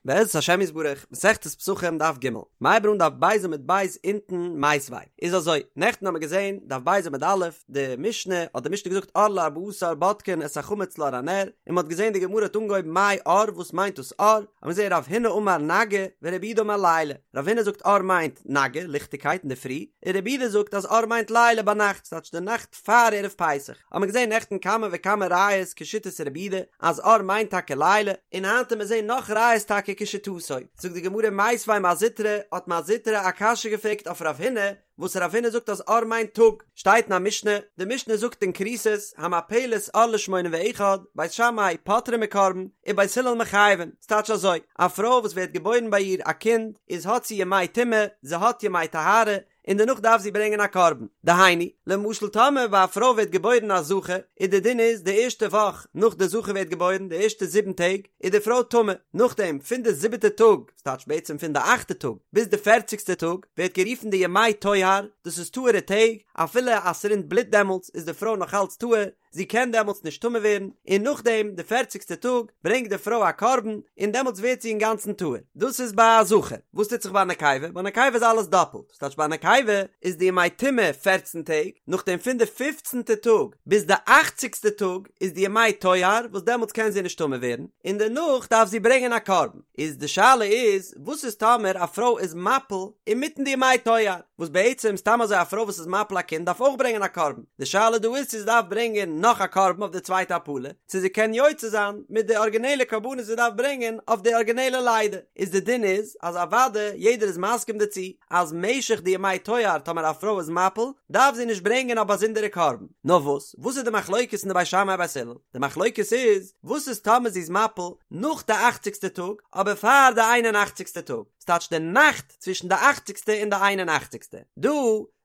בעזרת השם יתברך, מסכת פסחים דף ג', מ'הייבט אן דף ב' עמוד ב' אונטן מיתיבי איז אזוי, נעכטן האמיר געזען דף ב' עמוד א', די משנה, האט די משנה געזאגט אור לארבעה עשר בודקין את החמץ לאור הנר, און מ'האט געזען די גמרא האט אנגעהויבן מאי אור וואס מיינט דאס אור, האמיר געזען רב הונא אמר נגהי ורב יהודה אמר לילה, רב הונא זאגט אור מיינט נגהי, ליכטיגקייט אינדערפרי, און רב יהודה זאגט אז אור מיינט לילה ביינאכט, ס'טייטש די נאכט פאר ערב פסח האט מען געזען נעכטן כמה וכמה ראיות כשיטת רבי יהודה אז אור מיינט טאקע לילה, און היינט וועט מען זען נאך ראיות טאקע כשיטתו. זאגט די גמרא מיתיבי מר זוטרא, האט מר זוטרא א קשיא געפרעגט אויף רב הונא, וואס רב הונא זאגט אז אור מיינט טאג, שטייט אין א משנה, די משנה זאגט אין כריתות, המפלת אור לשמונים ואחד, בית שמאי פוטרין מקרבן, ובית הלל מחייבין, ס'טייטש אזוי, א פרוי וואס ווערט געבוירן ביי איר א קינד, איז האט זי ימי טומאה, זי האט ימי טהרה, און דערנאך דארף זי ברענגען א קרבן. דהיינו, למשל טאמער ביי א פרוי ווערט געבוירן א זכר, איז די דין איז די ערשטע וואך נאך די זכר ווערט געבוירן, די ערשטע זיבן טעג, איז די פרוי טמא, נאכדעם פון די זיבעטע טאג, ס'טייטש בעצם פון די אכטע טאג, ביז די פערציגסטע טאג, ווערט גערופן די ימי טוהר, דאס איז טהור'ע טעג, אפילו אז ס'רינט בלוט דעמאלטס איז די פרוי נאך אלץ טהור, זי קען דעמאלטס נישט טמא ווערן, און נאכדעם די פערציגסטע טאג ברענגט די פרוי א קרבן, און דעמאלטס ווערט זי אינגאנצן טהור. דאס איז ביי א זכר. וואס טוט זיך ביי א נקבה? ביי א נקבה איז אלעס דאפלט. ס'טייטש ביי א נקבה איז די ימי טומאה פערצן טעג, נאכדעם פון די פופצנטע טאג ביז די אכציגסטע טאג איז די ימי טוהר, וואס דעמאלטס קען זי נישט טמא ווערן, און דערנאך דארף זי ברענגען א קרבן. איז די שאלה איז, וואס איז טאמער א פרוי איז מפיל אינמיטן די ימי טוהר? וואס בעצם סתם אזוי א פרוי וואס איז מפיל א קינד דארף אויך ברענגען א קרבן, די שאלה דא איז צו זי דארף ברענגען נאך א קרבן אויף די צווייטע הפלה, צו זי קען יוצא זיין מיט די ארגינעלע קרבנות זי דארף ברענגען אויף די ארגינעלע לידה, איז די דין איז אז אוודאי יעדער איז מסכים דערצו אז משך די ימי טוהר טאמער א פרוי איז מפיל דארף זי נישט ברענגען א באזונדערע קרבן, נאר וואס וואס איז די מחלוקת אין די בית שמאי בית הלל? די מחלוקת איז וואס איז טאמער זי איז מפיל נאך די אכציגסטע טאג אבער פאר די איין און אכציגסטע טאג, ס'טייטש די נאכט צווישן די אכציגסטע און די איין און אכציגסטע. דא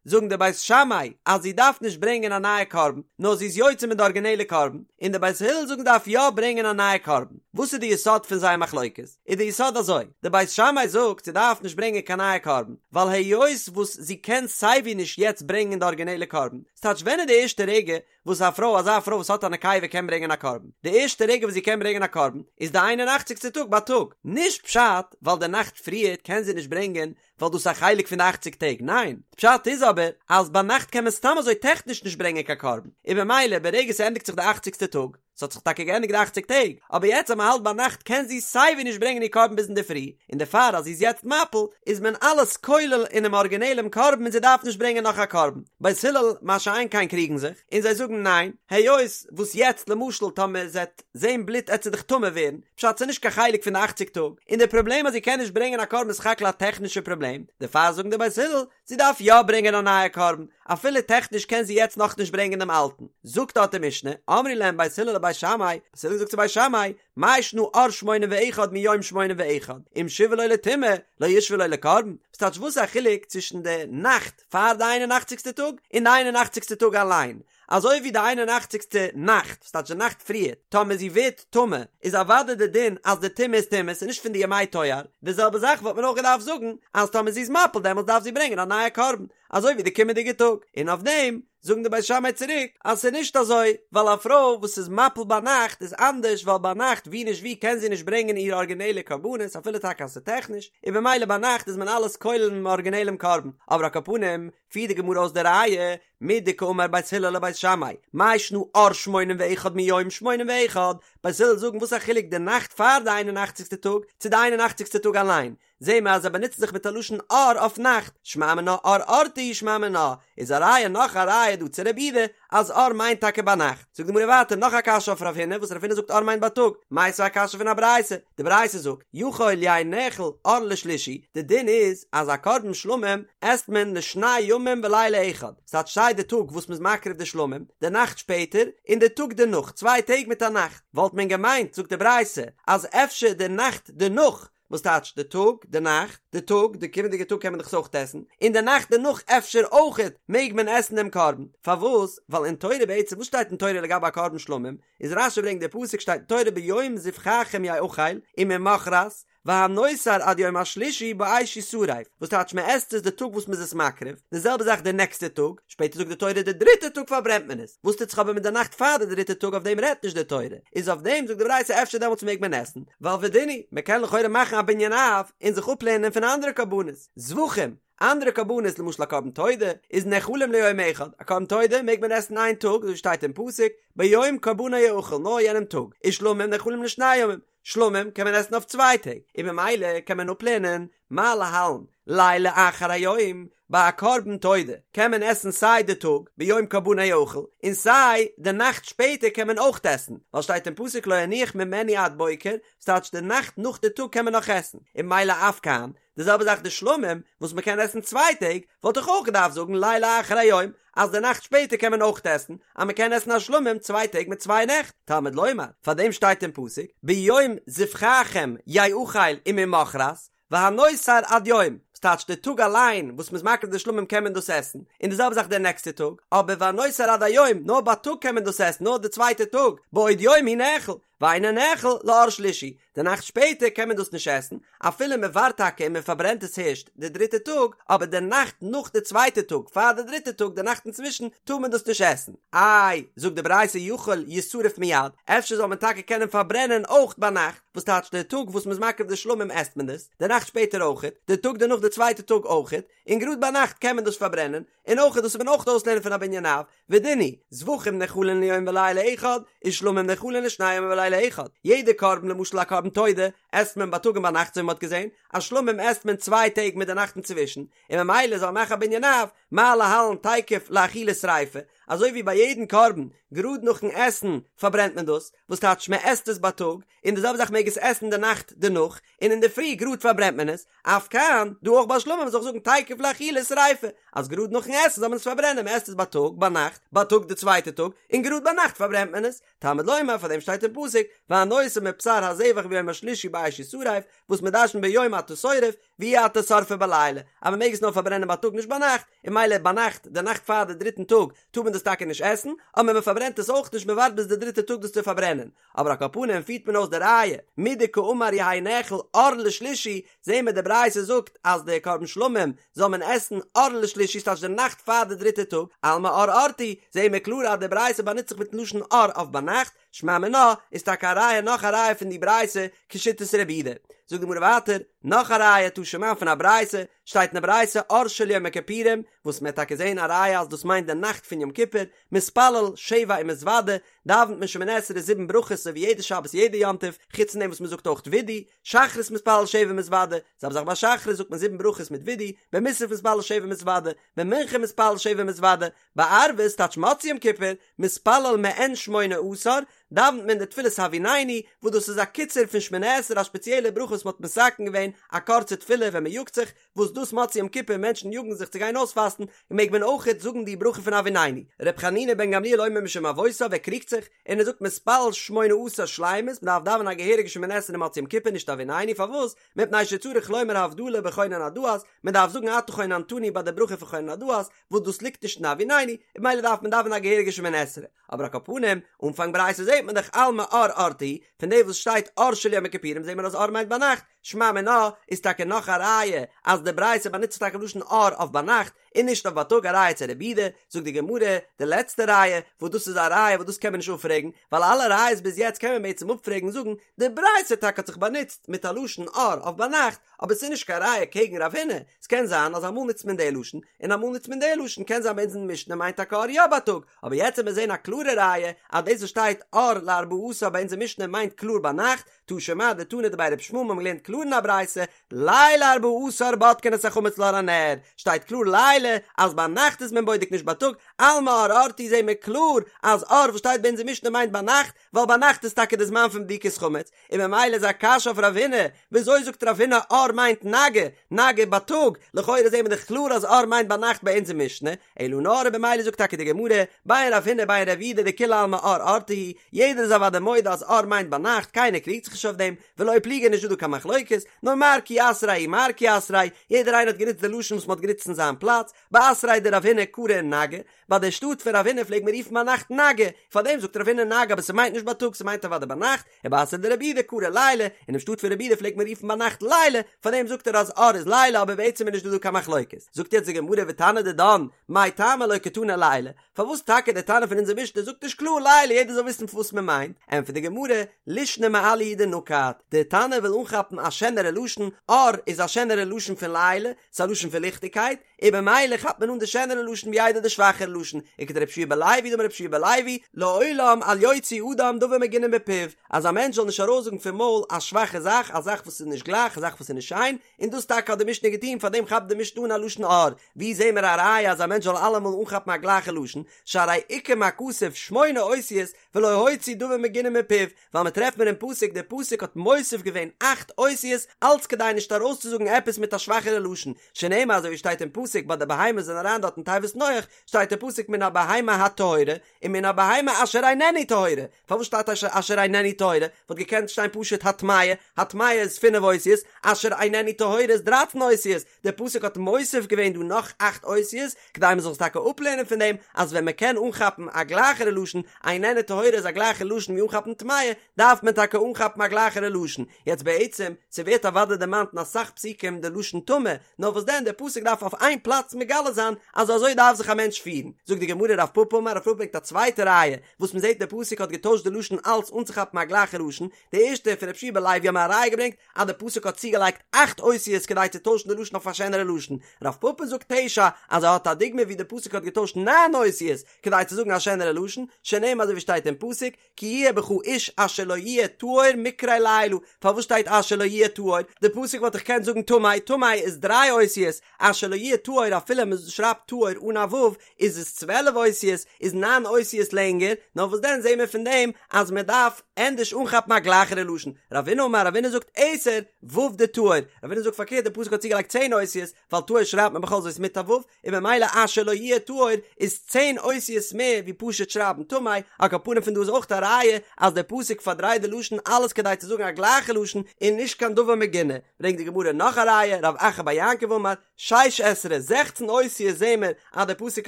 זאגן די בית שמאי אז זי דארף נישט ברענגען א נייע קרבן, נאר זי איז יוצא מיט די ארגינעלע קרבן, און די בית הלל זאגן דארף יא ברענגען א נייע קרבן. וואס איז די יסוד פון זייער מחלוקת? איז די יסוד אזוי, די בית שמאי זאגט זי דארף נישט ברענגען קיין נייע קרבן, ווייל היות וואס זי קען סייווי נישט יעצט ברענגען די ארגינעלע קרבן, ס'טייטש ווען איז די ערשטע רגע וואס א פרוי, אזא פרוי וואס האט א נקבה קען ברענגען א קרבן, די ערשטע רגע וואס זי קען ברענגען א קרבן איז די איין און אכציגסטע טאג בייטאג, נישט פשט ווייל די נאכט פריערט קען זי נישט ברענגען ווייל דאס איז א חלק פון די אכציג טעג, ניין, די פשט איז אבער אז ביינאכט קען מען סתם אזוי טעכניש נישט ברענגען קיין קרבן, און במילא ברגע ס'ענדיגט זיך די אכציגסטע טאג, ס'האט זיך טאקע געענדיגט די אכציג טעג, אבער יעצט אז מ'האלט ביינאכט קען זי סייווי נישט ברענגען איר קרבן ביז אינדערפרי, און דערפאר אז זי איז יעצט מפיל איז מען אלעס כולל אינעם ארגינעלעם קרבן און זי דארף נישט ברענגען נאך א קרבן. בית הלל מה שאין כן קריגן זיך, און זיי זאגן ניין, היות וואס יעצט למשל טאמער זי עט זען בלוט עט זי דאך טמא ווערן, פשט ס'איז נישט קיין חלק פון די אכציג טאג, און די פראבלעם אז זי קען נישט ברענגען א קרבן איז סך הכל א טעכנישע פראבלעם, דערפאר זאגן די בית הלל, זי דארף יא ברענגען א נייע קרבן, אפילו טעכניש קען זי יעצט נאכנישט ברענגען דעם אלטן. זאגט דארט די משנה, אמרו להם בית הלל לבית שמאי, בית הלל זאגט צו בית שמאי, מאי שנא אור שמונים ואחד מיום שמונים ואחד, אם שיוה לו לטומאה, לא ישוה לו לקרבן, ס'טייטש וואס איז א חילוק צווישן די נאכט פאר די איין און אכציגסטע טאג און די איין און אכציגסטע טאג אליין, אזוי ווי די איין און אכציגסטע נאכט, ס'טייטש די נאכט פריער, טאמער זי ווערט טמא, איז אוודאי די דין אז די טומאה איז טומאה, ס'איז נישט פון די ימי טוהר, די זעלבע זאך וואלט מען אויך געדארפט זאגן, אז טאמער זי איז מפיל דעמאלטס דארף זי ברענגען א נייע קרבן, אזוי ווי די קומענדיגע טאג, און אויף דעם זאגן די בית שמאי צוריק אז ס'איז נישט אזוי, ווייל א פרוי וואס איז מפיל ביינאכט איז אנדערש ווייל ביינאכט ווי נישט ווי קען זי נישט ברענגען איר ארגינעלע קרבנות אפילו טאקע אז ס'איז טעכניש, און במילא ביינאכט איז מען אלעס כולל אינעם ארגינעלעם קרבן, אבער על כל פנים פירט די גמרא אויס די ראיה, מדקאמר בית הלל לבית שמאי, מאי שנא אור שמונים ואחד מיום שמונים ואחד, בית הלל זאגן וואס א חילוק די נאכט פאר די איין און אכציגסטע טאג צו די איין און אכציגסטע טאג אליין, זעהן מיר אז זיי באנוצן זיך מיט א לשון אור אויף נאכט, שמע מינה אור אורתא הוא שמע מינה, איז א ראיה נאך א ראיה דא צו רבי יהודה אז אור מיינט טאקע ביינאכט. זאגט די גמרא ווייטער נאך א קשיא אויף רב הונא וואס רב הונא זאגט אור מיינט בייטאג, מיתיבי א קשיא פון א ברייתא, די ברייתא זאגט, יכול יהא נאכל אור לשלישי, די דין איז אז א קרבן שלמים עסט מען לשני ימים ולילה אחד, ס'טייטש סיי די טאג וואס מ'איז מקריב די שלמים, די נאכט שפעטער, און די טאג דערנאך, צוויי טעג מיט א נאכט, וואלט מען געמיינט, זאגט די ברייתא, אז אפשר די נאכט דערנאך וואס טייטש די טאג, די נאכט, די טאג, די קומענדיגע טאג קען מען דאך עס אויך עסן, און די נאכט דערנאך אפשר אויכעט מעג מען עסן דעם קרבן, פארוואס? ווייל אין תורה בעצם וואס שטייט אין תורה לגבי א קרבן שלמים, איז רש"י ברענגט די פסוק שטייט אין תורה ביום זבחכם יאכל וממחרת. והנותר עד יום השלישי באש ישרף, וואס טייטש מען עסט עס די טאג וואס מען איז עס מקריב, די זעלבע זאך די נעקסטע טאג, שפעטער זאגט די תורה די דריטע טאג פארברענט מען עס, וואס טוט זיך אבער מיט די נאכט פאר די דריטע טאג אויף דעם רעדט נישט די תורה, איז אויף דעם זאגט די ברייתא אפשר דעמאלטס מעג מען עסן, ווייל ודין הוא, מען קען לכאורה מאכן א בנין אב און זיך אפלערנען פון אנדערע קרבנות, זבחים, אנדערע קרבנות למשל א קרבן תודה איז נאכלים ליום אחד, א קרבן תודה מעג מען עסן איין טאג אזוי ווי שטייט אין פסוק ביום קרבנו יאכל נאר יענעם טאג, ושלמים נאכלים לשני ימים, שלמים קען מען עסן אויף צוויי טעג, און ממילא קען מען אפלערנען מה להלן לילה אחר היום, ביי א קרבן תודה קען מען עסן סיי די טאג ביום קרבנו יאכל און סיי די נאכט שפעטער קען מען אויך עסן, ווייל שטייט אין פסוק לא יניח ממנו עד בוקר, ס'טייטש די נאכט נאך די טאג קען מען נאך עסן, און ממילא אף כאן די זעלבע זאך די שלמים וואס מען קען עסן צוויי טעג, וואלט איך אויך געדארפט זאגן לילה אחר היום אז די נאכט שפעטער קען מען אויך עסן, אז מען קען עסן א שלמים צוויי טעג מיט צוויי נעכט, תלמוד לומר, פאר דעם שטייט אין פסוק, ביום זבחכם יאכל וממחרת, והנותר עד יום, וואס טייטש די טאג אליין וואס מען איז מקריב די שלמים קען מען דאס עסן, און די זעלבע זאך די נעקסטע טאג, אבער והנותר עד היום, נאר בייטאג קען מען דאס עסן, נאר די צווייטע טאג, בעוד יום הוא נאכל, ואינו נאכל לאור שלישי, די נאכט שפעטער קען מען דאס נישט עסן, אפילו מען ווארט טאקע און מען פארברענט עס הערשט די דריטע טאג, אבער די נאכט נאך די צווייטע טאג פאר די דריטע טאג די נאכט אינצווישן טאר מען דאס נישט עסן. איי, זאגט די ברייתא יכול ישרף מיד, אפשר זאל מען טאקע קענען פארברענען אויך ביינאכט, וואס טייטש די טאג וואס מען איז מקריב די שלמים עסט מען דאס, די נאכט שפעטער אויכעט, די טאג דערנאך די צווייטע טאג אויכעט, און גראד ביינאכט קען מען דאס פארברענען, און אויכעט דאס וועט מען אויך אויסלערנען פון א בנין אב, ודין הוא, זבחים נאכלין ליום ולילה אחד, ושלמים נאכלין לשני ימים ולילה אחד. יעדע קרבן, למשל א קרבן תודה, עסט מען בייטאג און ביינאכט אזוי ווי מ'האט געזען, א שלמים עסט מען צוויי טעג מיט די נאכט אינצווישן, און ממילא זאל מען מאכן א בנין אב, מה להלן תיכף לאכילה שריפה, אזוי ווי ביי יעדן קרבן, גראד נאכן עסן פארברענט מען דאס, וואס טייטש מען עסט עס בייטאג, און די זעלבע זאך מעג עס עסן די נאכט דערנאך, און אינדערפרי גראד פארברענט מען עס, אף כאן, דא אויך ביי שלמים זאל איך זאגן תיכף לאכילה שריפה, אז גראד נאכן עסן זאל מען עס פארברענען, מען עסט עס בייטאג, ביינאכט, בייטאג די צווייטע טאג, און גראד ביינאכט פארברענט מען עס, תלמוד לומר פאר דעם שטייט אין פסוק, והנותר מבשר הזבח ביום השלישי באש ישרף, וואס מען דרש'נט ביום אתה שורף, ואי אתה שורפו בלילה, אז מען מעג עס נאר פארברענען בייטאג נישט ביינאכט, און ממילא ביינאכט, די נאכט פאר די דריטן טאג, טאר מען דאס טאקע נישט עסן, אבער מען פארברענט עס אויך נישט מען ווארט ביז די דריטע טאג דאס צו פארברענען, אבער על כל פנים פירט מען אויס די ראיה, מדקאמר יהא נאכל אור לשלישי, זעהן מיר די ברייתא זאגט אז די קרבן שלמים זאל מען עסן אור לשלישי ס'טייטש די נאכט פאר די דריטע טאג, אלמא אור אורתא הוא, זעהן מיר קלאר אז די ברייתא באנוצט זיך מיטן לשון אור אויף ביינאכט, שמע מינה איז טאקע א ראיה נאך א ראיה פון די ברייתא כשיטת רבי יהודה. זאגט די גמרא ווייטער, נאך א ראיה תא שמע פון א ברייתא, שטייט אין די ברייתא אור של יום הכיפורים, וואס מען וועט טאקע זעהן א ראיה אז דאס מיינט די נאכט פון יום כיפור, מתפלל שבע ומתוודה, דאווענט מען שמונה עשרה זיבן ברכות אזוי ווי יעדע שבת יעדע יום טוב, חוץ פון דעם וואס מען זאגט אויך וידוי, שחרית מתפלל שבע ומתוודה, זעלבע זאך ביי שחרית זאגט מען זיבן ברכות מיט וידוי, במוסף מתפלל שבע ומתוודה, במנחה מתפלל שבע ומתוודה, בערבית טייטש מוצאי יום כיפור, מתפלל מעין שמונה עשר, דאווענט מען די תפילת הביננו, וואס דאס איז א קיצור פון שמונה עשרה א שפעציעלע ברכה וואס מען האט מתקן געווען א קורצע תפילה ווען מען יאגט זיך, וואס דאס מוצאי יום כיפור מענטשן יאגן זיך צו גיין אויספאסטן, מעג מען אויכעט זאגן די ברכה פון הביננו. ר' חנינא בן גמליאל אומר משום אבותיו ער קריגט זיך, און ער זאגט מתפלל שמונה עשר שלימות, מען דארף דאווענען א געהעריגע שמונה עשרה מוצאי יום כיפור נישט הביננו, פארוואס? מפני שצריך לומר הבדלה בחונן הדעת, מען דארף זאגן אתה חוננתנו ביי די ברכה פון חונן הדעת, וואס דאס ליגט נישט אין הביננו, און ממילא דארף מען דאווענען א געהעריגע שמונה עשרה. אבער על כל פנים, אנפאנג ברייתא זעט מען דאך אלמא אור אורתא הוא, פון דעם וואס שטייט אור של יום הכיפורים זעט מען אז אור מיינט ביינאכט, שמע מינה איז טאקע נאך א ראיה אז די ברייתא באנוצט זיך טאקע לשון אור אויף ביינאכט און נישט אויף בייטאג א ראיה צו רבי יהודה, זאגט די גמרא די לעצטע ראיה וואס דאס איז א ראיה וואס דאס קען מען נישט אפפרעגן ווייל אלע ראיות ביז יעצט קען מען בעצם אפפרעגן זאגן די ברייתא טאקע האט זיך באנוצט מיט א לשון אור אויף ביינאכט אבער ס'איז נישט קיין ראיה קעגן רב הונא, ס'קען זיין אז אמאל נוצט מען די לשון און אמאל נוצט מען די לשון קען זיין ביי אונז אין משנה מיינט טאקע אור יא בייטאג אבער יעצט וועט מען זען א קלארע ראיה אז דאס וואס שטייט אור לארבעה עשר ביי אונז אין משנה מיינט קלאר ביינאכט, תא שמע דתנא דבי ר' ישמעאל מ'האבן געלערנט קלאר אין א ברייתא, ליל ארבעה עשר בודקין את החמץ לאור הנר, שטייט קלאר לילה אז ביינאכט איז מען בודק נישט בייטאג, אלמא אור אורתא הוא זעהן מיר קלאר אז אור וואס שטייט ביי אונז אין משנה מיינט ביינאכט, ווייל ביינאכט איז טאקע די זמן פון בדיקת חמץ, און ממילא איז א קשיא אויף רב הונא, וויאזוי זאגט רב הונא אור מיינט נגהי, נגהי בייטאג, לכאורה זעהן מיר דאך קלאר אז אור מיינט ביינאכט ביי אונז אין משנה, אלא נאר במילא זאגט טאקע די גמרא, בין רב הונא בין רב יהודה דכולי עלמא אור אורתא הוא, יעדער איז אוודאי מודה אז אור מיינט ביינאכט, קיינער קריגט זיך נישט אויף דעם, ולא פליגי נישט דא דא קיין מחלוקת. מחלוקת, נאר מר כי אתריה ומר כי אתריה, יעדער איינער האט גענוצט די לשון וואס מען האט גענוצט אין זיין פלאץ, באתריה דרב הונא קרו נגה, ביי די שטאט פון רב הונא פלעגט מען רופן ביינאכט נגה, פארדעם זאגט רב הונא נגה אבער ס'מיינט נישט בייטאג ס'מיינט אוודאי ביינאכט, ובאתריה דרב יהודה קרו ליליא, אינעם שטאט פון רב יהודה פלעגט מען רופן ביינאכט ליליא, פארדעם זאגט ער אז אור איז לילה אבער בעצם איז נישט דא דא קיין מחלוקת. זאגט יעצט די גמרא ותנא דידן, מאי טעמא לא קתני לילה, פארוואס טאקע דער תנא פון אונזער משנה זאגט נישט קלאר לילה יעדער זאל וויסן וואס מען מיינט, ענטפערט די גמרא, לישנא מעליא הוא דנקט, דער תנא וויל אנכאפן א שענערע לשון, אור איז א שענערע לשון פון לילה, ס'איז א לשון פון ליכטיגקייט, און במילא כאפט מען אן די שענערע לשון ווי איידער די שוואכערע לשון, וכדרבי יהושע בן לוי דאמר רבי יהושע בן לוי, לעולם אל יוציא אדם דבר מגונה מפיו, אז א מענטש זאל נישט ארויסזאגן פון מויל א שוואכע זאך, א זאך וואס איז נישט גלייך, א זאך וואס איז נישט שיין, און דאס טאקע האט די משנה געטון, פארדעם כאפט די משנה אן א לשון אור, ווי זעהן מיר א ראיה אז א מענטש זאל אלעמאל אנכאפן א גלייכע לשון, שהרי עיקם הכתוב שמונה אותיות ולא הוציא דבר מגונה מפיו, ווייל מען טרעפט מיר אין פסוק, דער פסוק האט מוסיף געווען אכט אותיות אלץ כדי נישט ארויסצוזאגן עפעס מיט א שוואכערע לשון, שנאמר אזוי ווי שטייט אין פסוק ביי די בהמות זענען אריין דארט אין תיבת נח, שטייט אין פסוק מן הבהמה הטהורה, און מן הבהמה אשר איננה טהורה, פארוואס שטייט אשר איננה טהורה? וואלט געקענט שטיין פשוט הטמאה, הטמאה איז פינף אותיות, אשר איננה טהורה איז דרייצן אותיות, דער פסוק האט מוסיף געווען דא נאך אכט אותיות, כדי מען זאל עס טאקע אפלערנען פון דעם אז ווען מען קען אנכאפן א גלייכערע לשון, איננה טהורה איז א גלייכער לשון ווי אנכאפן טמאה, דארף מען טאקע אנכאפן א גלייכערע לשון. יעצט בעצם, ס'ווערט אוודאי דערמאנט אין אסאך פסוקים די לשון טמא, נאר וואס דען דער פסוק דארף אויף איין פלאץ מגלה זיין אז אזוי דארף זיך א מענטש פירן. זאגט די גמרא רב פפא אמר רב פפא ברענגט א צווייטע ראיה וואס מען זעט דער פסוק האט געטוישט די לשון אלץ אנצוכאפן א גלייכע לשון, די ערשטע פון רבי יהושע בן לוי האבן מיר א ראיה געברענגט אז די פסוק האט צוגעלייגט אכט אותיות כדי צו טוישן די לשון אויף א שענערע לשון, רב פפא זאגט תשע אז ער האט א דוגמא ווי די פסוק האט געטוישט ניין אותיות כדי צו זאגן א שענערע לשון, שנאמר אזוי ווי שטייט אין פסוק, כי יהיה בך איש אשר לא יהיה טהור מקרה לילה, פארוואס שטייט אשר לא יהיה טהור? די פסוק וואלט דאך געקענט זאגן טמא, טמא איז דריי אותיות, אשר לא יהיה טהור אפילו מען שרייבט טהור אן א ו' איז עס 12 אותיות, איז ניין אותיות לענגער, נאר וואס דען זעהן מיר פון דעם אז מען דארף ענדערש אנכאפן א גלייכערע לשון, רבינא אמר רבינא זאגט עשר ו' דטהור, רבינא זאגט פארקערט די פסוק האט צוגעלייגט צען אותיות, ווייל טהור שרייבט מען בכל זאת מיט א ו', און ממילא אשר לא יהיה טהור איז צען אותיות מער ווי פשוט שרייבן טמא, על כל פנים פון דא איז אויך א ראיה אז דער פסוק פארדרייט די לשון אלעס כדי צו זאגן א גלייכע לשון און נישט קיין דבר מגונה, ברענגט די גמרא נאך א ראיה, רב אחא בר יעקב אמר, שש עשרה, זעכצן אותיות זעהן מיר אז דער פסוק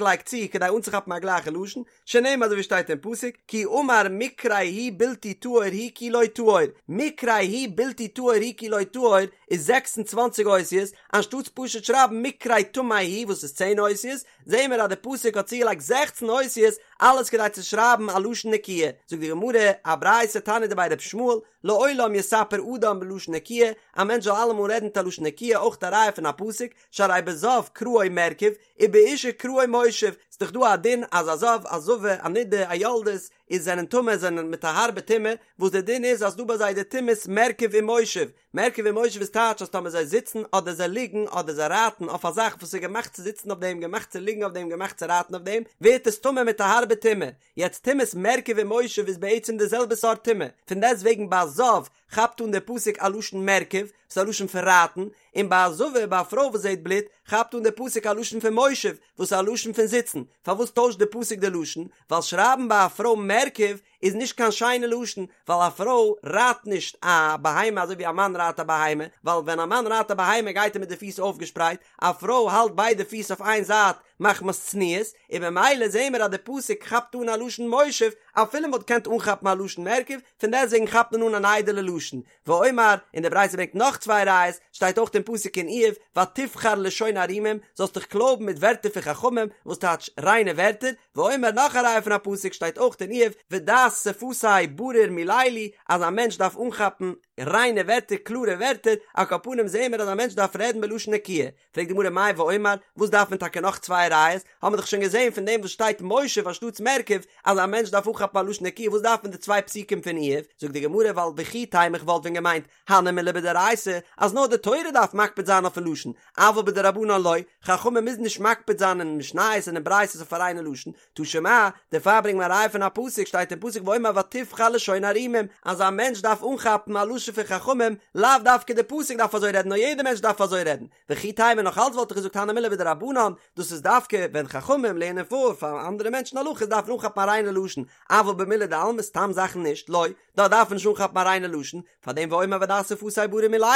לייגט צו כדי אנצוכאפן א גלייכע לשון, שנאמר אזוי ווי שטייט אין פסוק, כי אמר מקרה הוא בלתי טהור הוא כי לא טהור, מקרה הוא בלתי טהור הוא כי לא טהור איז 26 אותיות, אנשטאטס פשוט שרייבן מקרה טמא הוא וואס איז צען אותיות, זעהן מיר אז די פסוק האט צוגעלייגט זעכצן אותיות אלעס כדי צו שרייבן א לשון נקיה, זאגט די גמרא, א ברייתא תניא דבי ר' ישמעאל, לעולם יספר אדם בלשון נקיה, א מענטש זאל אלעמאל רעדן מיט א לשון נקיה, אויך א ראיה פון א פסוק, שהרי בזב קראו מרכב, ובאשה קראו מושב, ס'איז דאך דא א דין אז א זב, א זבה, א נידה, א יולדת, איז זענען טמא, זענען מיט א הארבע טומאה, וואס דער דין איז אז דא ביי זיי די טומאת מרכב און מושב, מרכב און מושב איז טייטש אז טאמער זיי זיצן אדער זיי ליגן אדער זיי רייטן אויף א זאך וואס איז געמאכט צו זיצן אויף דעם, געמאכט צו ליגן אויף דעם, געמאכט צו רייטן אויף דעם, ווערט עס טמא מיט א הארבע טומאה. יעצט טומאת מרכב און מושב איז בעצם די זעלבע סארט טומאה, פון דעסט וועגן ביי א זב כאפט אן דער פסוק א לשון מרכב, וואס איז א לשון פון רייטן, און ביי א זבה, ביי א פרוי וואס זעט בלוט, כאפט אן דער פסוק א לשון פון מושב, וואס איז א לשון פון זיצן. פארוואס טוישט דער פסוק די לשון? ווייל שרייבן ביי א פרוי מרכב איז נישט קיין שיינע לשון, ווייל א פרוי רייט נישט א בהמה אזוי ווי א מאן רייט א בהמה, ווייל ווען א מאן רייט א בהמה גייט ער מיט די פיס אויפגעשפרייט, א פרוי האלט ביידע פיס אויף איין זייט מחמת צניעות, און ממילא זעהן מיר אז די פסוק כאפט אן א לשון מושב, אפילו מ'וואלט געקענט אנכאפן א לשון מרכב, פון דעסטוועגן כאפט מען אן אן איידעלע לשון. ואומר, און די ברייתא ברענגט נאך צוויי ראיות, שטייט אויך אין פסוק אין איוב, ותבחר לשון ערומים, זאלסט דיך קלויבן מיט ווערטער פון חכמים, וואס טייטש ריינע ווערטער, ואומר נאך א ראיה פון א פסוק שטייט אויך אין איוב, ודעת שפתי ברור מללו, אז א מענטש דארף אנכאפן ריינע ווערטער, קלארע ווערטער, על כל פנים זעהן מיר אז א מענטש דארף רעדן בלשון נקיה. פרעגט די גמרא מאי ואומר, וואס דארף מען טאקע נאך צוויי ראיות, האבן מיר דאך שוין געזען פון דעם וואס שטייט מושב אנשטאטס מרכב, אז א מענטש דארף אנכאפן א לשון נקיה, וואס דארף מען די צוויי פסוקים פון איוב? זאגט די גמרא ווייל וכי תימא איך וואלט ווען געמיינט, הני מילי בדאורייתא, אז נאר די תורה דארף מקפיד זיין אויפן לשון, אבל בדרבנן לא, חכמים מוזן נישט מקפיד זיין אין משניות און אין ברייתות אויף א ריינע לשון, תא שמע, דערפאר ברענגט מען א ראיה פון א פסוק, שטייט אין פסוק. פסוק ואומר ותבחר לשון ערומים, אז א מענטש דארף אנכאפן א לשון פון חכמים, לאו דווקא די פסוק דארף אזוי רעדן נאר יעדער מענטש דארף אזוי רעדן, וכי תימא נאך אלץ וואלט איך געזאגט הני מילי בדרבנן, דאס איז דווקא ווען חכמים לערנען פאר פאר אנדערע מענטשן הלכות דארף מען אנכאפן א ריינע לשון, אבל במילי דעלמא סתם זאכן נישט, לא, דארט דארף מען נישט אנכאפן א ריינע לשון, פאר דעם ואומר ודע שפתי ברור מללו,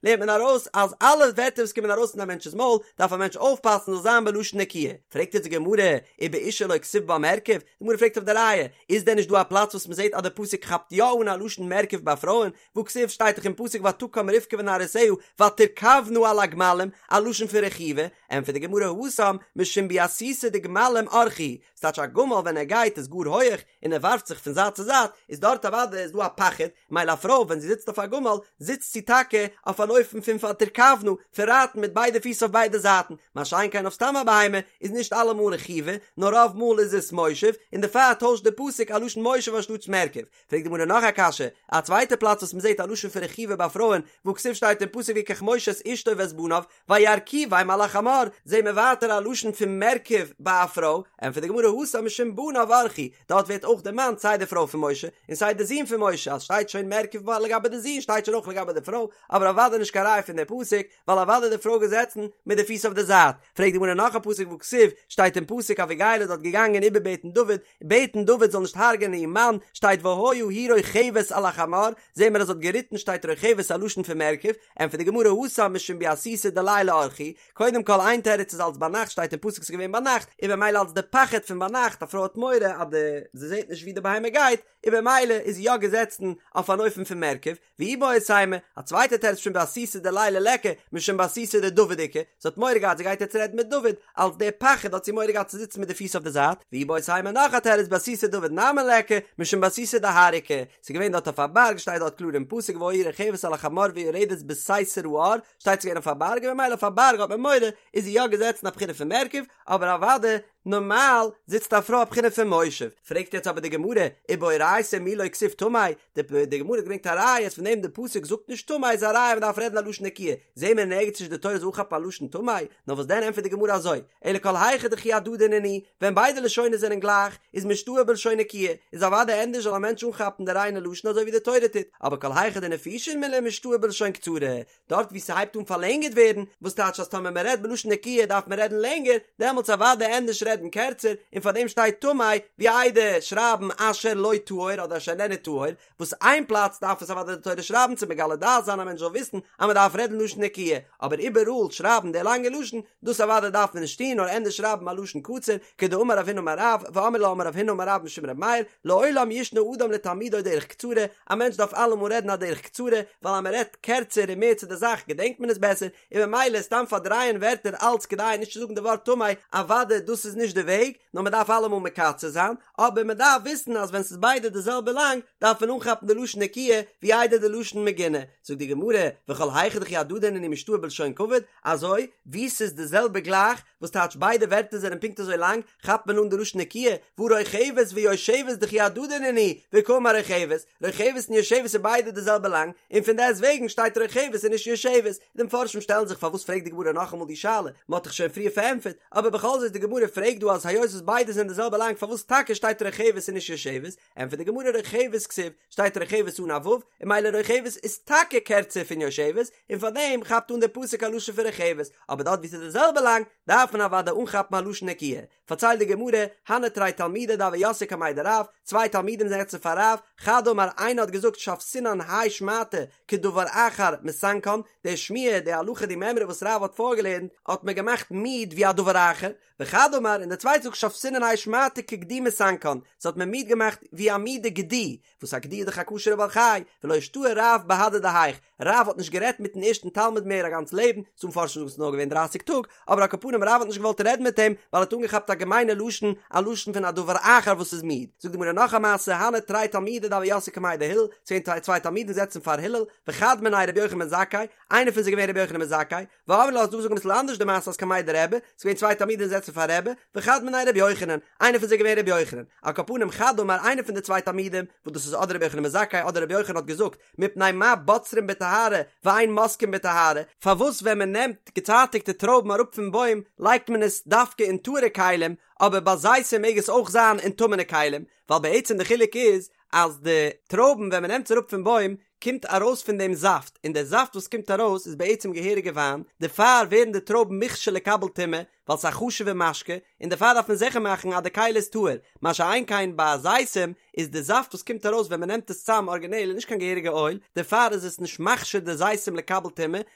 לערנט מען ארויס אז אלע ווערטער וואס קומען ארויס פון א מענטש'ס מויל, דארף א מענטש אויפפאסן זאל זיין בלשון נקיה. פרעגט יעצט די גמרא, ובאשה לא כתיב בה מרכב, די גמרא פרעגט אויף די ראיה, איז דען נישט דא א פלאץ וואס מען זעט אז די פסוק כאפט יא אן א לשון מרכב ביי פרויען, והכתיב שטייט דאך אין פסוק ותקם רבקה ונערותיה ותרכבנה על הגמלים, א לשון פון רכיבה, ענטפערט די גמרא התם משום ביעתותא דגמלים אורחא הוא, ס'טייטש א גמל ווען ער גייט איז גאר הויעך און ער ווארפט זיך פון זייט צו זייט, איז דארט אוודאי איז דא א פחד, מילא א פרוי ווען זי זיצט אויף א גמל זיצט זי טאקע אויף אן אופן פון ותרכבנה, פון רייטן מיט ביידע פיס אויף ביידע זייטן, מה שאין כן אויף סתם א בהמה איז נישט אלעמאל רכיבה, נאר רוב מאל איז עס מושב, און דערפאר טוישט די פסוק א לשון מושב אנשטאטס מרכב. פרעגט די גמרא נאך א קשיא, א צווייטע פלאץ וואס מ'זעט א לשון פון רכיבה ביי פרויען, והכתיב שטייט אין פסוק ויקח משה את אשתו ואת בניו, וירכיבם על החמור, זעהן מיר ווייטער א לשון פון מרכב ביי א פרוי, ענטפערט די גמרא התם משום בניו אורחא הוא, דארט ווערט אויך דערמאנט סיי די פרוי פון משה, און סיי די זון פון משה, אז שטייט שוין מרכב לגבי די זון שטייט שוין אויך לגבי די פרוי, אבער אוודאי נישט קיין ראיה פון די פסוק, ווייל אוודאי די פרוי געזעצן מיט די פיס אויף די זייט, פרעגט די גמרא נאך א פסוק והכתיב, שטייט אין פסוק אביגיל איז דארט געגאנגען איבערבעטן דוד, בעטן דוד זאל נישט הרג'ענען איר מאן, שטייט והיה היא רוכבת על החמור, זעהן מיר אז זי האט געריטן שטייט רוכבת א לשון פון מרכב, ענטפערט די גמרא התם משום ביעתותא דליליא אורחא הוא, קודם כל איין תירוץ איז אלס ביינאכט שטייט אין פסוק ס'איז געווען ביינאכט, און במילא אלס די פחד פון ביינאכט א פרוי האט מורא אז די זי זעהט נישט ווי די בהמה גייט, און במילא איז זי יא געזעצן אויף אן אופן פון מרכב, ואיבעית אימא, א צווייטע תירוץ משום ביעתותא דליליא ליכא, משום ביעתותא דדוד איכא, זי האט מורא געהאט זי גייט יעצט רעדן מיט דוד, אלס דער פחד האט זי מורא געהאט צו זיצן מיט די פיס אויף די זייט, ואיבעית אימא נאך א תירוץ ביעתותא דוד נמי ליכא, משום ביעתותא דהר איכא, ס'איז געווען דארט אויף א בארג שטייט דארט קלאר אין פסוק והיה היא רוכבת על החמור ויורדת בסתר ההר, שטייט ס'איז געווען אויף א בארג און ממילא אויף א בארג האט מען מורא, איז זי יא געזעצן א בחינה פון מרכב, אבער אוודאי נארמאל זיצט א פרוי א בחינה פון מושב. פרעגט יעצט אבער די גמרא, ובאורייתא מי לא כתיב טמא, די גמרא האט געברענגט א ראיה אז פון דעם די פסוק זאגט נישט טמא איז א ראיה מ'דארף רעדן א לשון נקיה, זעהן מיר נערגעץ נישט די תורה זאל אנכאפן א לשון טמא, נאר וואס דען ענטפערט די גמרא אזוי, אלא כל היכא דכי הדדי נינהו, ווען ביידע לשונות זענען גלייך, איז משתעי בלשון נקיה, איז אוודאי ענדערש זאל א מענטש אנכאפן די ריינע לשון אזוי ווי די תורה טוט, אבער כל היכא דנפישין מילי משתעי בלשון קצרה, דארט וואו ס'הייבט אן פארלענגערט ווערן, וואס טייטש אז טאמער מ'רעדט בלשון נקיה דארף מען רעדן לענגער, דעמאלטס אוודאי ענדערש רעדן קערצער, און פארדעם שטייט טמא, ווי איידער שרייבן אשר לא טהור אדער אשר איננו טהור, וואס איין פלאץ דארף עס אוודאי די תורה שרייבן צו מגלה דעת זיין א מענטש זאל וויסן אז מ'דארף רעדן לשון נקיה, אבער איבעראל שרייבן די לאנגע לשון, דאס אוודאי דארף מען נישט טון נאר ענדערש שרייבן א לשון קצר, כדאמר רב הונא אמר רב, ואמרי לה אמר רב הונא אמר רב משום ר' מאיר, לעולם ישנה אדם לתלמידו דרך קצרה, א מענטש דארף אלעמאל רעדן א דרך קצרה, ווייל אז מען רעדט קערצער און מער צו די זאך געדענקט מען עס בעסער, און ממילא סתם פארדרייען ווערטער אלץ כדי נישט צו זאגן די ווארט טמא, אוודאי דאס איז נישט די וועג, נאר מען דארף אלעמאל מקצר זיין, אבער מען דארף וויסן אז ווען ס'איז ביידע די זעלבע לאנג, דארף מען אנכאפן די לשון נקיה, ווי איידער די לשון מגונה. זאגט די גמרא, וכל היכא דכי הדדי נינהו משתעי בלשון כבוד, אזוי ווי ס'איז די זעלבע גלייך, וואס טייטש ביידע ווערטער זענען פונקט אזוי לאנג, כאפט מען אן די לשון נקיה, והא רוכבת ויושבת דכי הדדי נינהו, וקאמר רוכבת, רוכבת און יושבת איז ביידע די זעלבע לאנג, און פון דעסט וועגן שטייט רוכבת און נישט יושבת. די מפרשים שטעלן זיך פארוואס פרעגט די גמרא נאכאמאל די שאלה, מען האט דאך שוין פריער פארענטפערט, אבער בכל זאת די גמרא פרעגט דא אז היות וואס ביידע זענען די זעלבע לאנג פארוואס טאקע שטייט רוכבת און נישט יושבת, ענטפערט די גמרא רוכבת כתיב, שטייט רוכבת אן א ו', און ממילא רוכבת איז טאקע קערצער פון יושבת, און פאר דעם כאפט אן דער פסוק א לשון פון רוכבת, אבער דארט וואו ס'איז די זעלבע לאנג, דארף מען אוודאי אנכאפן א לשון נקיה. פארציילט די גמרא, הנהו תרי תלמידי דהוו יתבי קמיה דרב, צוויי תלמידים זענען געזעצן פאר רב, חד אמר איינער האט געזאגט שויתינן האי שמעתא כדבר אחר מסנקן, די שמועה, די הלכה, די מימרא וואס רב האט פארגעלערנט, האט מיר געמאכט מיד ווי א דבר אחר, וחד אמר, און דער צווייטער זאגט שויתינן האי שמעתא כגדי מסנקן, ס'האט מיר מיד געמאכט ווי א מידע גדי, וואס א גדי איז דאך א כשר'ע בעל חי, ולא אישתעי רב בהדי דהאיך, רב האט נישט גערעדט מיטן ערשטן תלמיד מער א גאנץ לעבן, ס'דא מפרשים זאגן ס'איז נאר געווען דרייסיג טאג, אבער על כל פנים רב האט נישט געוואלט רעדן מיט אים, ווייל ער האט אנגעכאפט א געמיינע לשון, א לשון פון א דבר אחר וואס איז מיד. זאגט די גמרא נאך א מעשה, הנהו תרי תלמידי דהוו יתבי קמיה דהלל, ס'געווען צוויי תלמידים זעצן פאר הלל, וחד מינייהו רבי יוחנן בן זכאי, איינער פון זיי איז געווען רבי יוחנן בן זכאי, ואמרי לה ס'איז דא וואס זאגן אביסל אנדערש די מעשה אז קמיה דרבי, ס'איז געווען צוויי תלמידים זעצן פאר רבי, וחד מינייהו רבי יוחנן, איינער פון זיי איז געווען רבי יוחנן, על כל פנים חד אמר איינער פון די צוויי תלמידים, וואס דאס איז אדער רבי יוחנן בן זכאי אדער רבי יוחנן האט געזאגט, מפני מה בוצרין בטהרה ואין מוסקין בטהרה, פארוואס ווען מען נעמט געצייטיגטע טרויבן אראפ פון בוים לייגט מען עס דווקא אין טהור'ע כלים, אבער ביי זיתים מעג עס אויך זיין אין טמא'נע כלים, ווייל בעצם די חילוק איז אז די טרויבן ווען מען נעמט עס אראפ פון בוים קומט ארויס פון דעם זאפט, און דער זאפט וואס קומט ארויס איז בעצם געהעריגע וויין, דערפאר ווערן די טרויבן מוכשר לקבל טומאה, ווייל ס'איז א חשוב'ע משקה, און דערפאר דארף מען זיכער מאכן אז די כלי איז טהור, מה שאין כן ביי זיתים איז די זאפט וואס קומט ארויס ווען מ'נעמט עס צאם ארגינעל איז נישט קיין געהעריגע אויל, דערפאר איז עס נישט מכשיר די זיתים לקבל טומאה, און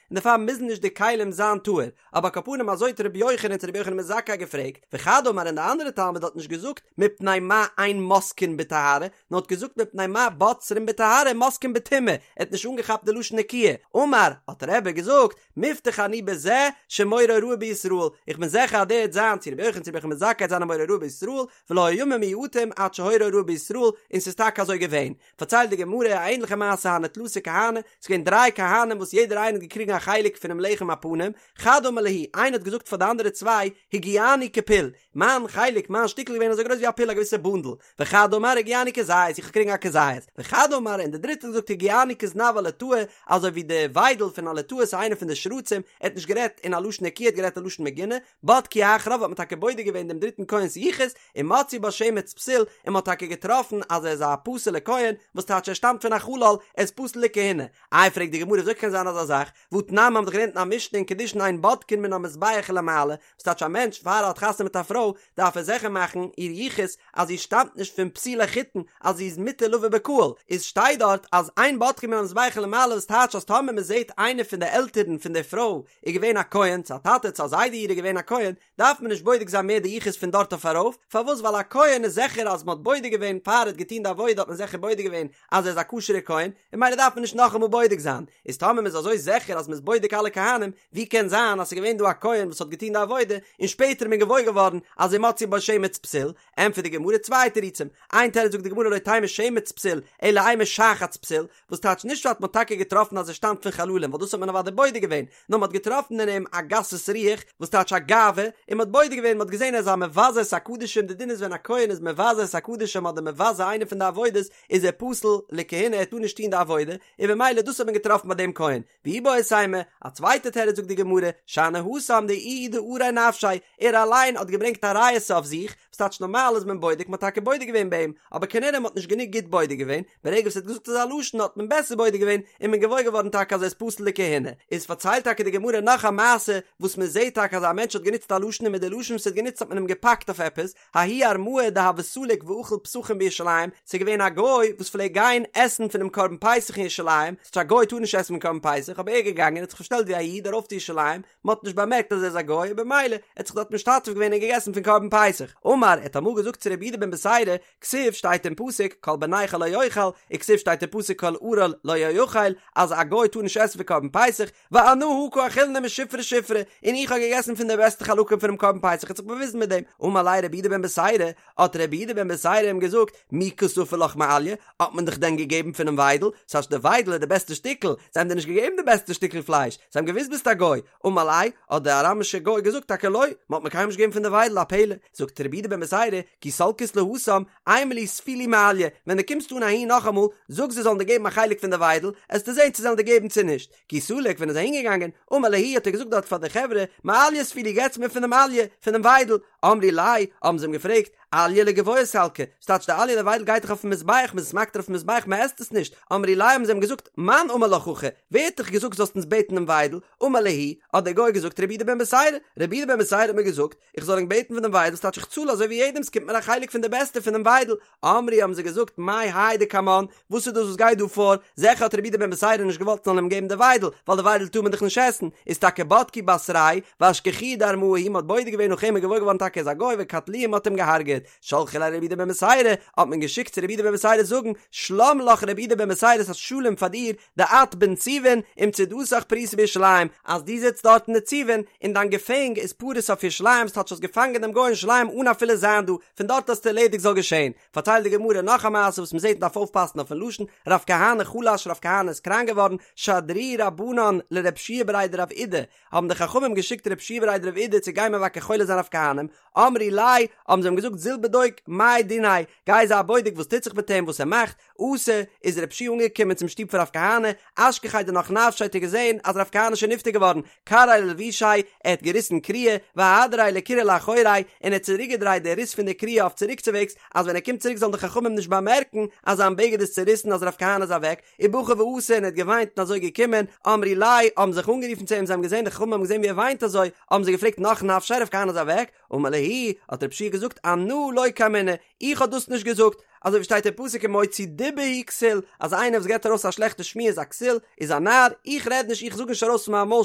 דערפאר מוזן נישט די כלים זיין טהור. אבער על כל פנים אזוי האט רבי יוחנן צו רבי יוחנן בן זכאי געפרעגט, וחד אמר און די אנדערע תלמיד האט נישט געזאגט מפני מה אין מוסקין בטהרה, נאר האט געזאגט מפני מה בוצרין בטהרה מוסקין בטומאה, ער האט נישט אנגעכאפט די לשון נקיה, אמר, האט רבי געזאגט, מובטח אני בזה שמורה הוראה בישראל, איך בין זיכער אז דער וועט זיין צו רבי יוחנן צו רבי יוחנן בן זכאי וועט זיין א מורה הוראה בישראל, ולא היו ימים מועטים עד שהורה הוראה בישראל, און ס'איז טאקע אזוי געווען. פארציילט די גמרא א ענליכע מעשה הנהו תלתא כהני, ס'איז געווען דריי כהנים וואס יעדער איינער האט געקריגן א חלק פונעם לחם הפנים, חד אמר להו, איינער האט געזאגט פאר די אנדערע צוויי, הגיעני כפול, מיין חלק, מיין שטיקל איז געווען אזוי גרויס ווי א פול א געוויסע בונדל, וחד אמר הגיעני כזית, איך האב געקריגן א כזית, וחד אמר, און דער דריטער האט געזאגט הגיעני כזנב הלטאה, אזוי ווי די וויידל פון א לטאה ס'איז איינער פון די שרצים, ער האט נישט גערעדט אין א לשון נקיה ער האט גערעדט א לשון מגונה, בדקו אחריו האט מען טאקע בודק געווען דעם דריטן כהן'ס יחוס, ומצאו בו שמץ פסול, און מען האט טאקע געטראפן אז ער איז א פסול'ע כהן, וואס טייטש ער שטאמט פון א חלל, ער איז פסול לכהונה. איי פרעגט די גמרא וויאזוי קען זיין אזא זאך, והתנן מ'האט דאך געלערנט אין א משנה אין קידושין אין בודקין מן המזבח ולמעלה, וואס טייטש א מענטש פאר ער האט חתונה מיט א פרוי דארף ער זיכער מאכן איר יחוס אז זי שטאמט נישט פון פסולי חיתון אז זי איז מותר לבא בקהל, איז שטייט דארט אז אין בודקין מן המזבח ולמעלה וואס טייטש אז טאמער מען זעט איינער פון די עלטערן פון די פרוי איז געווען א כהן, צו א טאטע צו א זיידע אירע איז געווען א כהן, דארף מען נישט בודק זיין מער די יחוס פון דארט אויף ארויף, פארוואס ווייל א כהן איז זיכער אז מען האט בודק געווען פאר ער האט געטון די עבודה האט מען זיכער בודק געווען אז ער איז א כשר'ער כהן, און ממילא דארף מען נישט נאכאמאל בודק זיין, איז טאמער מען איז אזוי זיכער אז מען איז בודק אלע כהנים, ווי קען זיין אז ס'איז געווען דא א כהן וואס האט געטון די עבודה, און שפעטער איז מען געוואויר געווארן אז ומצאו בו שמץ פסול, ענטפערט די גמרא צוויי תירוצים, איין תירוץ זאגט די גמרא לא תימא שמץ פסול, אלא אימא שחץ פסול, וואס טייטש נישט אז מ'האט טאקע געטראפן אז ער שטאמט פון חללים ווייל דאס האט מען אוודאי בודק געווען, נאר מ'האט געטראפן אין אים א גסות רוח, וואס טייטש א גאווה, און מ'האט בודק געווען, מ'האט געזען ער איז א מבזה את הקדשים, די דין איז ווען א כהן איז מבזה את הקדשים אדער מבזה איינע פון די עבודות, איז ער פסול לכהונה ער טאר נישט טון די עבודה, און במילא דאס האט מען געטראפן ביי דעם כהן. ואיבעית אימא, א צווייטע תירוץ זאגט די גמרא, שאני התם דאיהו דארע נפשיה, ער אליין האט געברענגט א ריעותא אויף זיך, וואס טייטש נארמאל איז מען בודק, מ'האט טאקע בודק געווען ביי אים, אבער כנראה מ'האט נישט גענוג גוט בודק געווען, ברגע וואס ער האט געזאגט אזא לשון האט מען בעסער בודק געווען און מען געוואויר געווארן טאקע אז ער איז פסול לכהונה. איז פארציילט טאקע די גמרא נאך א מעשה וואס מען זעט טאקע אז א מענטש האט גענוצט א לשון און מיט די לשון וואס ער האט גענוצט האט מען אים געפאקט אויף עפעס, ההוא ארמאה דהוה סליק ואכיל פסחים בירושלים, ס'איז געווען א גוי וואס פלעגט גיין עסן פונעם קרבן פסח אין ירושלים, ס'טייטש א גוי טאר נישט עסן פון קרבן פסח, אבער ער איז געגאנגען און האט זיך פארשטעלט ווי א איד ארויף צו ירושלים, מען האט נישט באמערקט אז ער איז א גוי און במילא ער האט זיך דארט משתתף געווען און געגעסן פון קרבן פסח. אמר, ער האט אמאל געזאגט צו רבי יהודה בן בתירא, כתיב שטייט אין פסוק כל בן נכר לא יאכל, וכתיב שטייט אין פסוק כל ערל לא יאכל, אז א גוי טאר נישט עסן פון קרבן פסח, ואנא הא קא אכילנא משופרי שופרי, און איך האב געגעסן פון די בעסטע חלקים פונעם קרבן פסח האט זיך באוויזן מיט דעם, אמר ליה רבי יהודה בן בתירא, האט רבי יהודה בן בתירא אים געזאגט, מי קא ספו לך מאליה, האט מען דיך דען געגעבן פונעם וויידל, ס'הייסט די וויידל איז די בעסטע שטיקל, זיי האבן דיר נישט געגעבן די בעסטע שטיקל פלייש, זיי האבן געוואוסט ביסט א גוי, אמר ליה, האט דער אראמישער גוי געזאגט טאקע לא, מען האט מיר קיינמאל נישט געגעבן פון די וויידל, א פלא, זאגט רבי יהודה בן בתירא, כי סלקת להתם, אימא להו ספו לי מאליה, ווען דו קומסט אן אהין נאכאמאל, זאג זיי זאלן דיר געבן א חלק פון די וויידל, עסטו זען צו זיי וועלן דיר געבן צו נישט. כי סליק, ווען ער איז אהין געגאנגען, אמר להו האט ער געזאגט דארט פאר די חברה, מאליה ספו לי געטס מיר פון דעם אליה, פון דעם וויידל, אמרי ליה, האבן זיי אים געפרעגט, אליה לגבוה סלקא, ס'טייטש די אליה די וויידל גייט דאך אויפן מזבח, מ'איז עס מקטיר אויפן מזבח, מ'עסט עס נישט, אמרי ליה האבן זיי אים געזאגט, מאן אמר לך הכי, ווער האט דיך געזאגט זאלסט אונז בעטן דעם וויידל, אמר להו, האט דער גוי געזאגט רבי יהודה בן בתירא, רבי יהודה בן בתירא האט מיר געזאגט, איך זאל ענק בעטן פון דעם וויידל, ס'טייטש איך צאל אזוי ווי יעדעם, ס'קומט מיר א חלק פון די בעסטע פונעם וויידל, אמרי האבן זיי געזאגט מאי האי דקמן, וואס איז דאס וואס גייט דא פאר, זעכער האט רבי יהודה בן בתירא נישט געוואלט מ'זאל אים געבן די וויידל, ווייל די וויידל טאר מען דאך נישט עסן, איז טאקע בדקו בתריה, ואשכחוהו דארמאה הוא, מ'האט בודק געווען נאך אים און געוואויר געווארן טאקע ער איז א גוי וקטלוהו מ'האט אים געהארגעט. פארקערט, שלחו ליה לרבי יהודה בן בתירא, האט מען געשיקט צו רבי יהודה בן בתירא זאגן, שלם לך רבי יהודה בן בתירא ס'איז שלום פאר דיר, דאת בנציבין ומצודתך פרוסה בירושלים, אז דו זיצט דארט אין נציבין און דיין געפענג איז פרוס אויף ירושלים, ס'טייטש האסט געפאנגען דעם גוי אין ירושלים אן אפילו זיין דא, פון דארט האסטו ערלעדיגט זאל געשען. פארציילט די גמרא נאך א מעשה וואס מ'זעט מ'דארף אויפפאסן אויפן לשון, רב כהנא חלש רב כהנא איז קראנק געווארן, שדרוה רבנן לרב שיע בריה דרב אידי, האבן די חכמים געשיקט רב שיע בריה דרב אידי צו גיין מבקר חולה זיין רב כהנא'ן, אמרי ליה, האבן זיי אים געזאגט זיל בדוק מאי דיניה, גיי זיי בודק וואס טוט זיך מיט אים וואס ער מאכט, אתא, איז רב שיע אנגעקומען צום שטוב פון רב כהנא, אשכחיה דנח נפשיה האט ער געזען אז רב כהנא איז שוין נפטר געווארן, קרעיה ללבושיה, ער האט געריסן קריעה, ואהדריה לקרעה לאחוריה, און ער האט צוריקגעדרייט די ריס פון די קריעה אויף צוריקצווועגס, אז ווען ער קומט צוריק זאלן די חכמים נישט באמערקן אז זיין בגד איז צוריסן אז רב כהנא איז אוועק, ובכי ואתא און ער האט געוויינט און אזוי געקומען, אמרי ליה, האבן זיך אנגערופן צו אים, זיי האבן געזען, די חכמים האבן געזען ווי ער וויינט אזוי, האבן זיי געפרעגט נח נפשיה רב כהנא איז אוועק, אמר להו, האט רב שיע געזאגט, אנא לא קאמינא, איך האב דאס נישט געזאגט, אזוי ווי שטייט אין פסוק ומוציא דיבה הוא כסיל, אז איינער וואס געבט ארויס א שלעכטע שמועה איז א כסיל, איז א נאר, איך רעד נישט, איך זאג נישט ארויס פון מיין מויל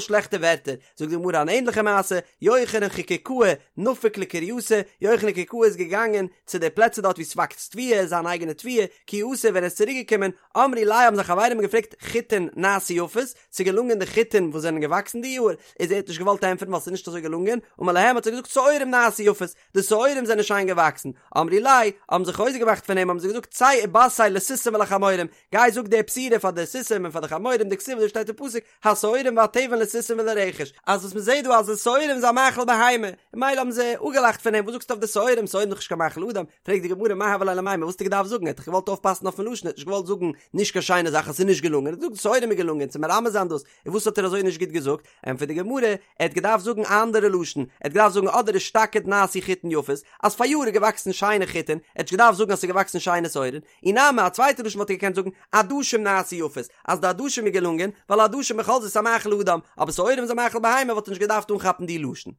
שלעכטע ווערטער, זאגט די גמרא אן ענדליכע מעשה, יוחנן חקוקאה נפק לקרייתא, יוחנן חקוקאה איז געגאנגען צו די פלעצער דארט וואו ס'וואקסט תבואה, זיין אייגענע תבואה, כי אתא ווען ער איז צוריק געקומען, אמרי ליה האבן זיין חברים געפרעגט חיטין נעשו יפות, ס'איז געלונגען די חיטין וואס זענען געוואקסן די יאר, איז ער האט נישט געוואלט ענטפערן ווייל ס'איז נישט אזוי געלונגען, אמר להם האט ער געזאגט שעורים נעשו יפות, די שעורים זענען שיין געוואקסן, אמרי ליה, האבן זיי חוזק געמאכט פון אים האבן זיי געזאגט צא ובשר לסוסים ולחמורים, גיי זאג די בשורה פאר די סוסים און פאר די חמורים דכתיב אזוי שטייט אין פסוק, השעורים והתבן לסוסים ולרכש, אז וואס מ'זעט דא אז די שעורים איז א מאכל בהמה, און ממילא האבן זיי אפגעלאכט פון אים, וואס זאגסטו אויף די שעורים, שעורים איז דאך נישט קיין מאכל אדם, פרעגט די גמרא מאי הוה ליה למימר, וואס האט ער געדארפט זאגן, ער האט דאך געוואלט אויפפאסן אויפן לשון, ער האט נישט געוואלט זאגן נישט קיין שיינע זאך אז ס'איז נישט געלונגען, ער האט געזאגט שעורים איז געלונגען, צו מרמז זיין דאס, און וואס האט ער אזוי נישט גוט געזאגט, ענטפערט די גמרא, ער האט געדארפט זאגן א אנדערע לשון, ער האט געדארפט זאגן אדער אשתקד נעשו חיטין יפות, אז פאריאר איז געוואקסן שיינע חיטין, ער האט נישט געדארפט זאגן אז ס'איז געוואקסן שיינע שעורים, אי נמי א צווייטע לשון וואלט ער געקענט זאגן עדשים נעשו יפות, אז די עדשים איז געלונגען, ווייל עדשים בכל זאת איז א מאכל אדם, אבער שעורים איז א מאכל בהמה וואלט ער נישט געדארפט אנכאפן די לשון.